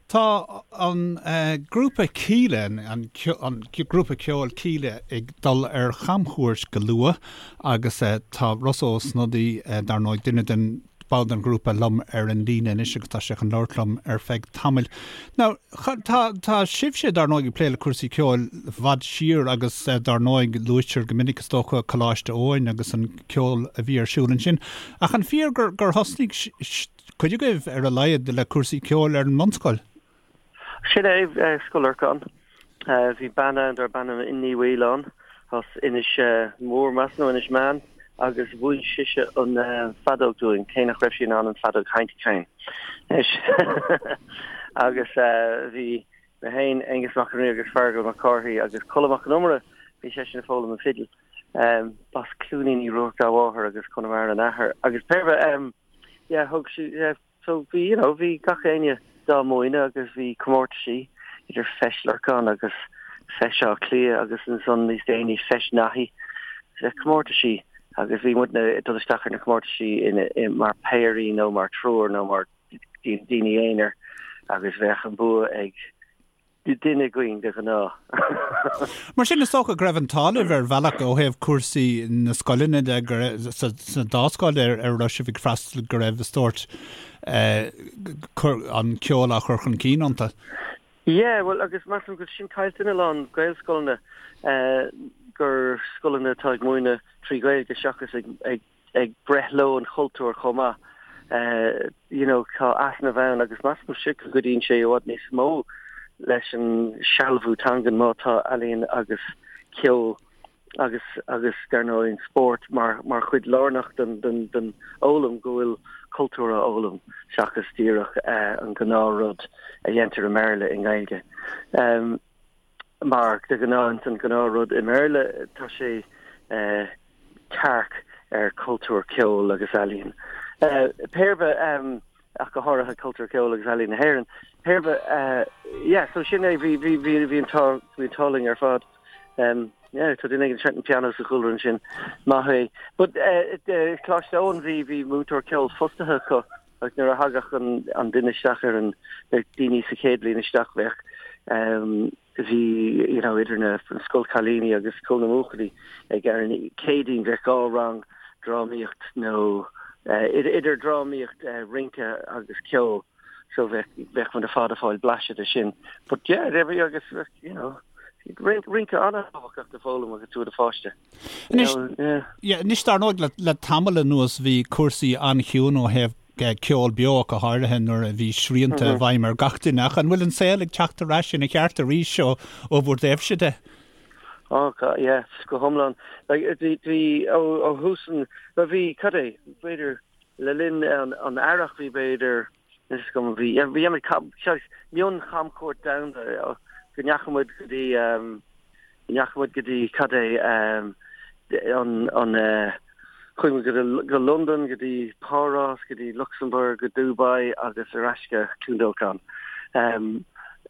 Tá an grúpa Kíla, an grúpa ceoil Kíla ag dul ar chamchuairt go luath agus tá Rossa Ó Snodaigh, dar ndóigh, duine den ball den ghrúpa liom ar an líne anois agus tá sé chun labhairt liom ar feadh tamaill. Now, tá, tá sibhse, dar ndóigh, ag plé le cúrsaí ceoil i bhfad siar agus dar ndóigh luaitear go minic is dócha Coláiste Eoin agus an ceol a bhí ar siúl ansin. Ach an fíor gur, gur thosnaigh cuid agaibh, ar a laghad, le cúrsaí ceoil ar an mbunscoil. Sin é, Scoil Lorcáin. Bhí bean ann darb ainm Ní Mhaoileáin as Inis Mór, measaim, nó Inis Meáin, agus mhúin sise an feadóg dúinn, cé nach raibh sí in ann an feadóg a sheinnt féin. Agus bhí mé féin, Aengus Mac an Rí agus Feargal Mac Cárthaigh agus Colm Mac Con Iomaire, bhí seisean ag foghlaim an fidil. B'as Cluainín Uí Ruairc dá mháthair agus Conamara an athair. Agus pé ar bith, yeah, thug sí, yeah, so bhí, you know, bhí gach éinne dá múineadh agus bhí comórtaisí idir Feis Lorcáin agus Feis Átha Cliath agus ansan níos déanaí Feis Naithí, comórtaisí agus bhí muidne ag dul isteach ar na comórtaisí in, in, mar péirí nó mar triúr nó mar daoine aonair agus bheadh an bua ag duine againn de ghnáth. Mar sin, is dócha go raibh an t-ádh libh ar bhealach ó thaobh cúrsaí na scoileanna de, go raibh, sa dá scoil ar a raibh sibh ag freastal, go raibh sórt an ceol á chur chun cinn iontu. Yeah, bhuel, agus measaim go bhfuil sin caillte in a lán Gaelscoileanna, gur scoileanna atá ag múineadh trí Ghaeilge seachas ag, ag, ag breith leo an chultúr chomh maith. You know, tá easnamh ann agus measaimse go gcuidíonn sé i bhfad níos mó leis an sealbhú teangan má tá ealaíon agus ceol agus agus dar ndóigh an spórt mar mar chuid lárnach den den den fhoghlaim go bhfuil cultúr á fhoghlaim seachas díreach an gnáth rud a dhéantar i mBéarla i nGaeilge. Mar de ghnáth an gnáth rud i mBéarla tá sé tearc ar cultúr ceoil agus ealaíon. Pé ar bith, ach go háirithe cultúr ceoil agus ealaíon na hÉireann. Pé ar bith, yeah, so sin é, bhí, bhí, bhí, bhí an t-ádh, bhí an t-ádh linn ar fad. Yeah, tá duine éigin ag seinnt an pianó sa chúlra ansin. Maith é. But Coláiste Eoin, bhí, bhí múinteoir ceoil fostaithe acu agus nuair a thagadh an, an duine isteach ar an, na daoine sa chéad bhliain isteach bheadh, bhí you know idir na scoil cailíní agus scoil na mbuachaillí ag ar an Céadaoin bheadh dhá rang drámaíocht nó idir drámaíocht rince agus ceol so bheadh bheadh muid ar fad ag fáil blaiseadh de sin but yeah there we agus you know rince an-tábhachtach do foghlaim agus tú i do pháiste. Anois, yeah, anois dar ndóigh le, le tamall anuas bhí cúrsaí an-chiúin ó thaobh ceol beo ach go háirithe nuair a bhí srianta i bhfeidhm ar gach duine. Ach an bhfuil an saol ag teacht ar ais ina cheart arís ó ó bhur dtaobhse de? Ó, yeah, go hiomlán. Like, bhí, bhí, ó, ó thús an, bhuel bhí, cad é, b'fhéidir, le linn an, an earrach bhí b'fhéidir, is go bhí, bhí muid, mion-chamchuairt domhanda, go ndeachaigh muid go dtí, go ndeachaigh muid go dtí, cad é, an, an, chuaigh muid go, go Londain, go dtí Páras, go dtí Lucsamburg, go Dubai agus ar ais go Cluain Dolcáin.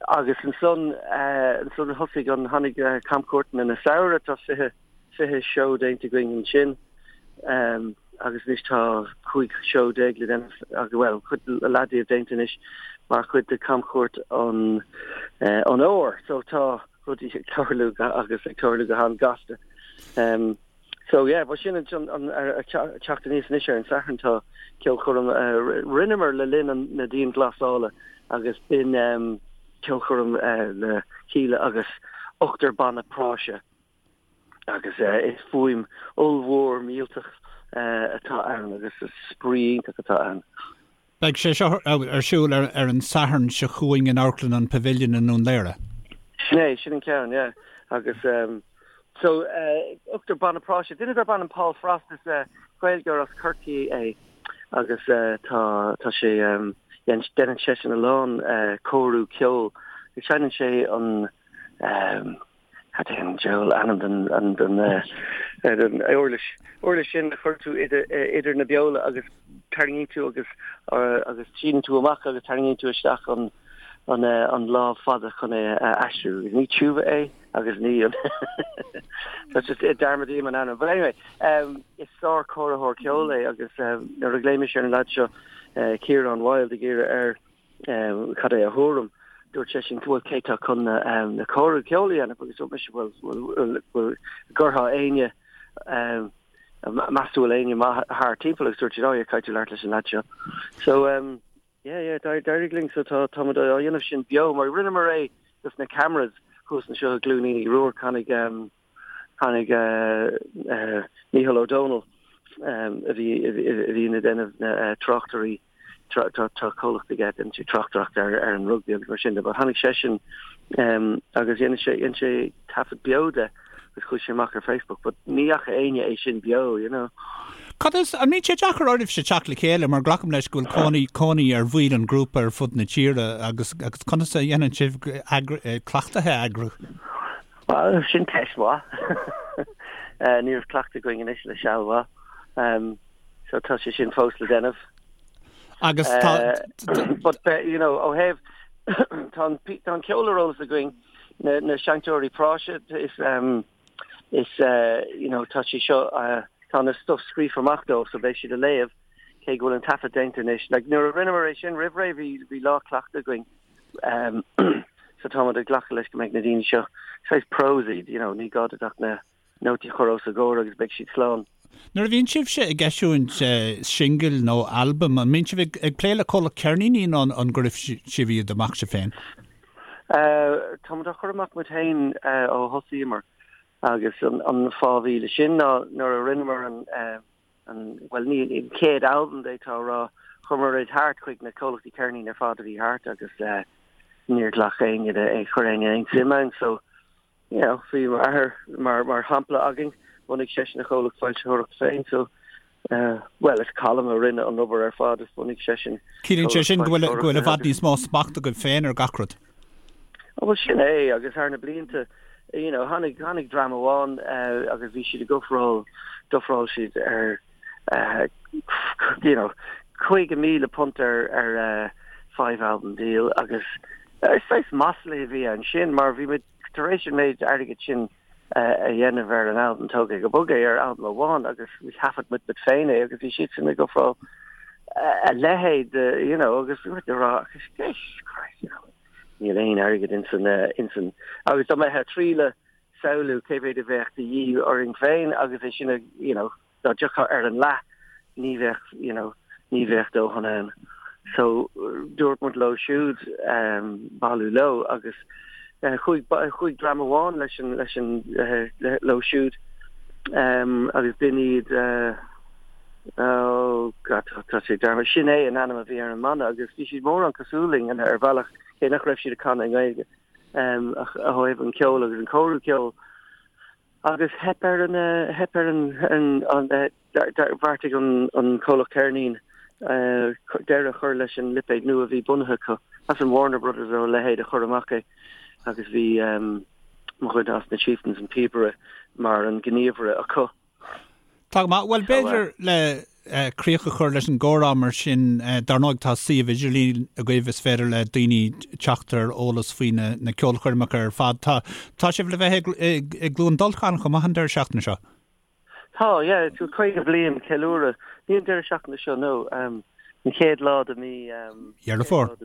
Agus ansan, ansan thosaigh an, tháinig camchuairteanna na samhradh, tá 20, 20 seó déanta againn ansin. Agus anois tá 15 seó le déanamh, bhuel, cuid leath díobh déanta anois mar chuid de camchuairt an, an fhómhair. So tá rudaí ag tarlú agus ag tarlú go han-gasta. So yeah, but sin an teacht aníos anois ar an Satharn tá ceolchoirm a rinneamar le linn na dianghlasála agus b'in ceolchoirm le Kíla agus ochtar banna práise agus is fuaim ollmhór millteach atá ann agus is spraoi iontach atá ann. Beidh sé seo ar siúl ar an Satharn seo chugainn in Amharclann an Pavilion i nDún Laoghaire. Sin é, sin an ceann, yeah. Agus so ochtar banna práise, duine darb ainm Paul Frost, is Gaeilgeoir as Corcaigh é agus tá tá sé déanann seisean a lán cóiriú ceoil. Seinneann sé an Cad é an diabhal ainm den den den uirlis uirlis sin a chuir tú idir idir na beola agus tarraingíonn tú agus agus síneann tú amach agus tarraingíonn tú isteach an an an lámh fada chun é a aistriú. Ní tiúba é agus ní an That's just dearmadaím an ainm. But anyway, um, is sár-chóiritheoir ceoil é agus um, nuair a ghlaoigh mise ar an lad seo uh, Ciarán Wilde ag iarraidh air um, cad é a thuairim. Dúirt seisean, bhuel, cé tá chun na, na cóiriú ceoil a dhéanamh? Agus dúirt mise, bhuel, bhuel, bhuel, gcuirfeá éinne, meas tú bhfuil éinne maith thart timpeall? Agus dúirt siad, oh yeah, caithfidh tú labhairt leis an leaid seo. So, um, yeah, yeah, d'éirigh linn, so tá, táimid á dhéanamh sin beo, mar rinneamar é dos na cameras thuas anseo i gCluain Uí Ruairc, tháinig, um, tháinig uh, uh, Mícheál Ó Domhnaill, um, a bhí, a bhí, a bhí ag déanamh na uh, tráchtairí Tá comhlacht aige, déanann sé tráchtaireacht ar an rugbaí agus mar sin de, but tháinig seisean agus dhein sé, dhein sé taifead beo de agus chuaigh sé amach ar Facebook, but ní fhaca éinne é sin beo, you know. Cad is, an mbíonn sé deacair oraibhse teacht le chéile mar glacaim leis go bhfuil cónaí, cónaí ar bhaill an ghrúpa ar fud na tíre agus, agus conas a dhéanann sibh cleachtaithe a eagrú? Bhuel, sin ceist mhaith. Ní raibh cleachtadh againn anois le seal mhaith. So tá sé sin fós le déanamh. Agus tá... But, you know, ó thaobh, tá an, tá an ceol ar eolas againn, na, na seinnteoirí práise, is, um, is, uh, you know, tá sé seo, uh, tá na stuff scríofa amach dóibh, so beidh siad a léamh, cé go bhfuil an taifead déanta anois. Like, nuair a rinneamar é sin roimh ré, bhí, bhí lá cleachta againn. Um, so táimid ag glacadh leis go mbeidh na daoine seo, saghas pros iad, you know, ní gá duit ach na, nótaí a chur os a gcomhair agus beidh siad slán. Nuair a bhíonn sibhse ag eisiúint singil nó albam, an mbíonn sibh ag plé le comhlacht ceirníní nó an gcuirfidh sibh iad amach sibh féin? Táimid á chur amach muid féin ó thosaíomar agus an fáth a bhí le sin ná nuair a rinneamar an, bhuel ní an chéad albam d'fhéadfá a rá, chuireamar iad thart chuig na comhlachtaí ceirnín ar fad a bhí thart agus níor ghlac éinne, chuir éinne aon suim ann so you know, bhí m'athair mar, mar shampla againn, bhunaigh seisean a chomhlacht foilsitheoireachta féin, so, eh, bhuel, is Colm a rinne an obair ar fad, is bhunaigh seisean Ciallaíonn sé sin go bhfuil, go bhfuil i bhfad níos mó smacht agaibh féin ar gach rud. Oh, bhuel, sin é, agus thar na blianta, you know, tháinig, tháinig dream amháin, eh, agus bhí siad ag ofráil, d'ofráil siad ar, eh, you know, £50,000 ar, ar, eh, five album deal, agus, eh, saghas masla a bhí ansin, mar bhí muid tar éis an méid airgid sin a dhéanamh ar an albam Tóg É Go Bog É ar albam amháin agus thaifead muid muid féin é agus bhí siadsan ag ofráil a leithéid de you know agus bhí muid ag rá agus Jesus Christ you know níl aon airgead insan insan agus dá mbeifeá ag triail samhlú cé mhéad a bheadh de dhíth orainn féin agus é sin a you know dá dtiocfá ar an leath ní bheadh you know ní bheadh dóthain ann. So dúirt muid leo siúd um, bailiú leo agus uh, chuaigh, chuaigh dream amháin leis an, leis an, uh, le, leo siúd um, agus b'in iad uh, oh God, tá sé dearmadta. Sin é an ainm a bhí ar an mbanna agus bhí siad mórán cosúil linn ar bhealach cé nach raibh siad ag canadh i nGaeilge um, ach ó thaobh an ceol agus an cóiriú ceoil. Agus theip ar an, theip ar an, an, bheartaigh an comhlacht ceirnín deireadh a chur leis an lipéad nua a bhí bunaithe acu, as an Warner Brothers nó a leithéid a chur amach é agus bhí mo dhuine as na Chieftains, an píobaire, mar an gníomhaire acu. Tá go maith. Bhuel, b'fhéidir le críoch a chur leis an gcomhrá mar sin, dar ndóigh tá suíomh idirlín agaibh is féidir le daoine teacht ar eolas faoi na ceolchoirmeacha ar fad. Tá tá sibh le bheith i gCluain Dolcáin chomh maith an deireadh seachtaine seo? Tá, yeah, 50 bliain ceiliúradh. Ní an deireadh seachtaine seo, no, an chéad lá de mí Dheireadh Fómhair.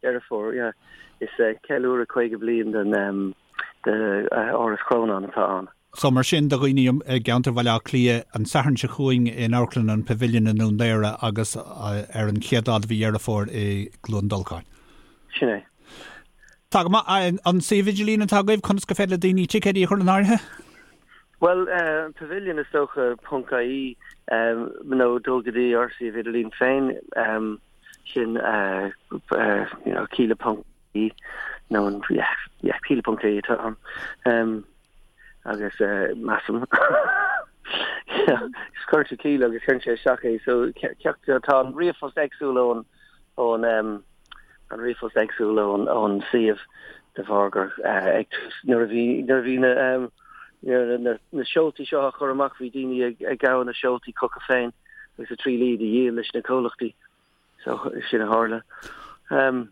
Deireadh Fómhair, yeah. Is ceiliúradh 50 bliain den de Áras Chrónáin atá ann. So mar sin do dhaoine i gceantar Bhaile Átha Cliath, an Satharn seo chugainn in Amharclann an Pavilion i nDún Laoghaire agus ar an chéad lá de mhí Dheireadh Fómhair i gCluain Dolcáin. Sin é. Tá go maith. An suíomh idirlín atá agaibh, conas gur féidir le daoine ticéidí a chur in áirithe? Bhuel, an Pavilion is dócha, ponc ie, nó dul go dtí ár suíomh idirlín féin. Sin you know Kíla ponc ie nó an yeah yeah Kíla ponc ie atá ann. Um, agus uh, measaim Cuir tú Kíla agus cuireann sé isteach é so ceacht tá an ríomhphost éagsúil ón ón um, an ríomhphost éagsúil ón ón suíomh de bharr gur uh, ag tús nuair a bhí nuair a bhí na um, na, na, na seoltaí seo á chur amach bhí daoine ag, ag gabháil na seoltaí chucu féin agus ag triail iad a dhíol leis na comhlachtaí. So sin a tharla. Um,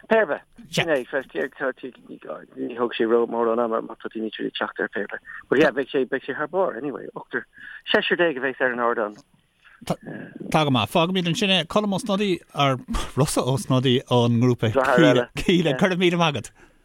pé ar bith, sin é, ní thóg sé ró mórán ama má tá daoine ag teacht ar pé ar bith. But yeah, beidh sé, beidh sé thar barr anyway, ochtar, seisear déag a bheas ar an ardán. Tá go maith. Fágfaimid ansin é. Colm Ó Snodaigh, ar Rossa Ó Snodaigh ón ngrúpa Kíla. Go raibh míle maith agat.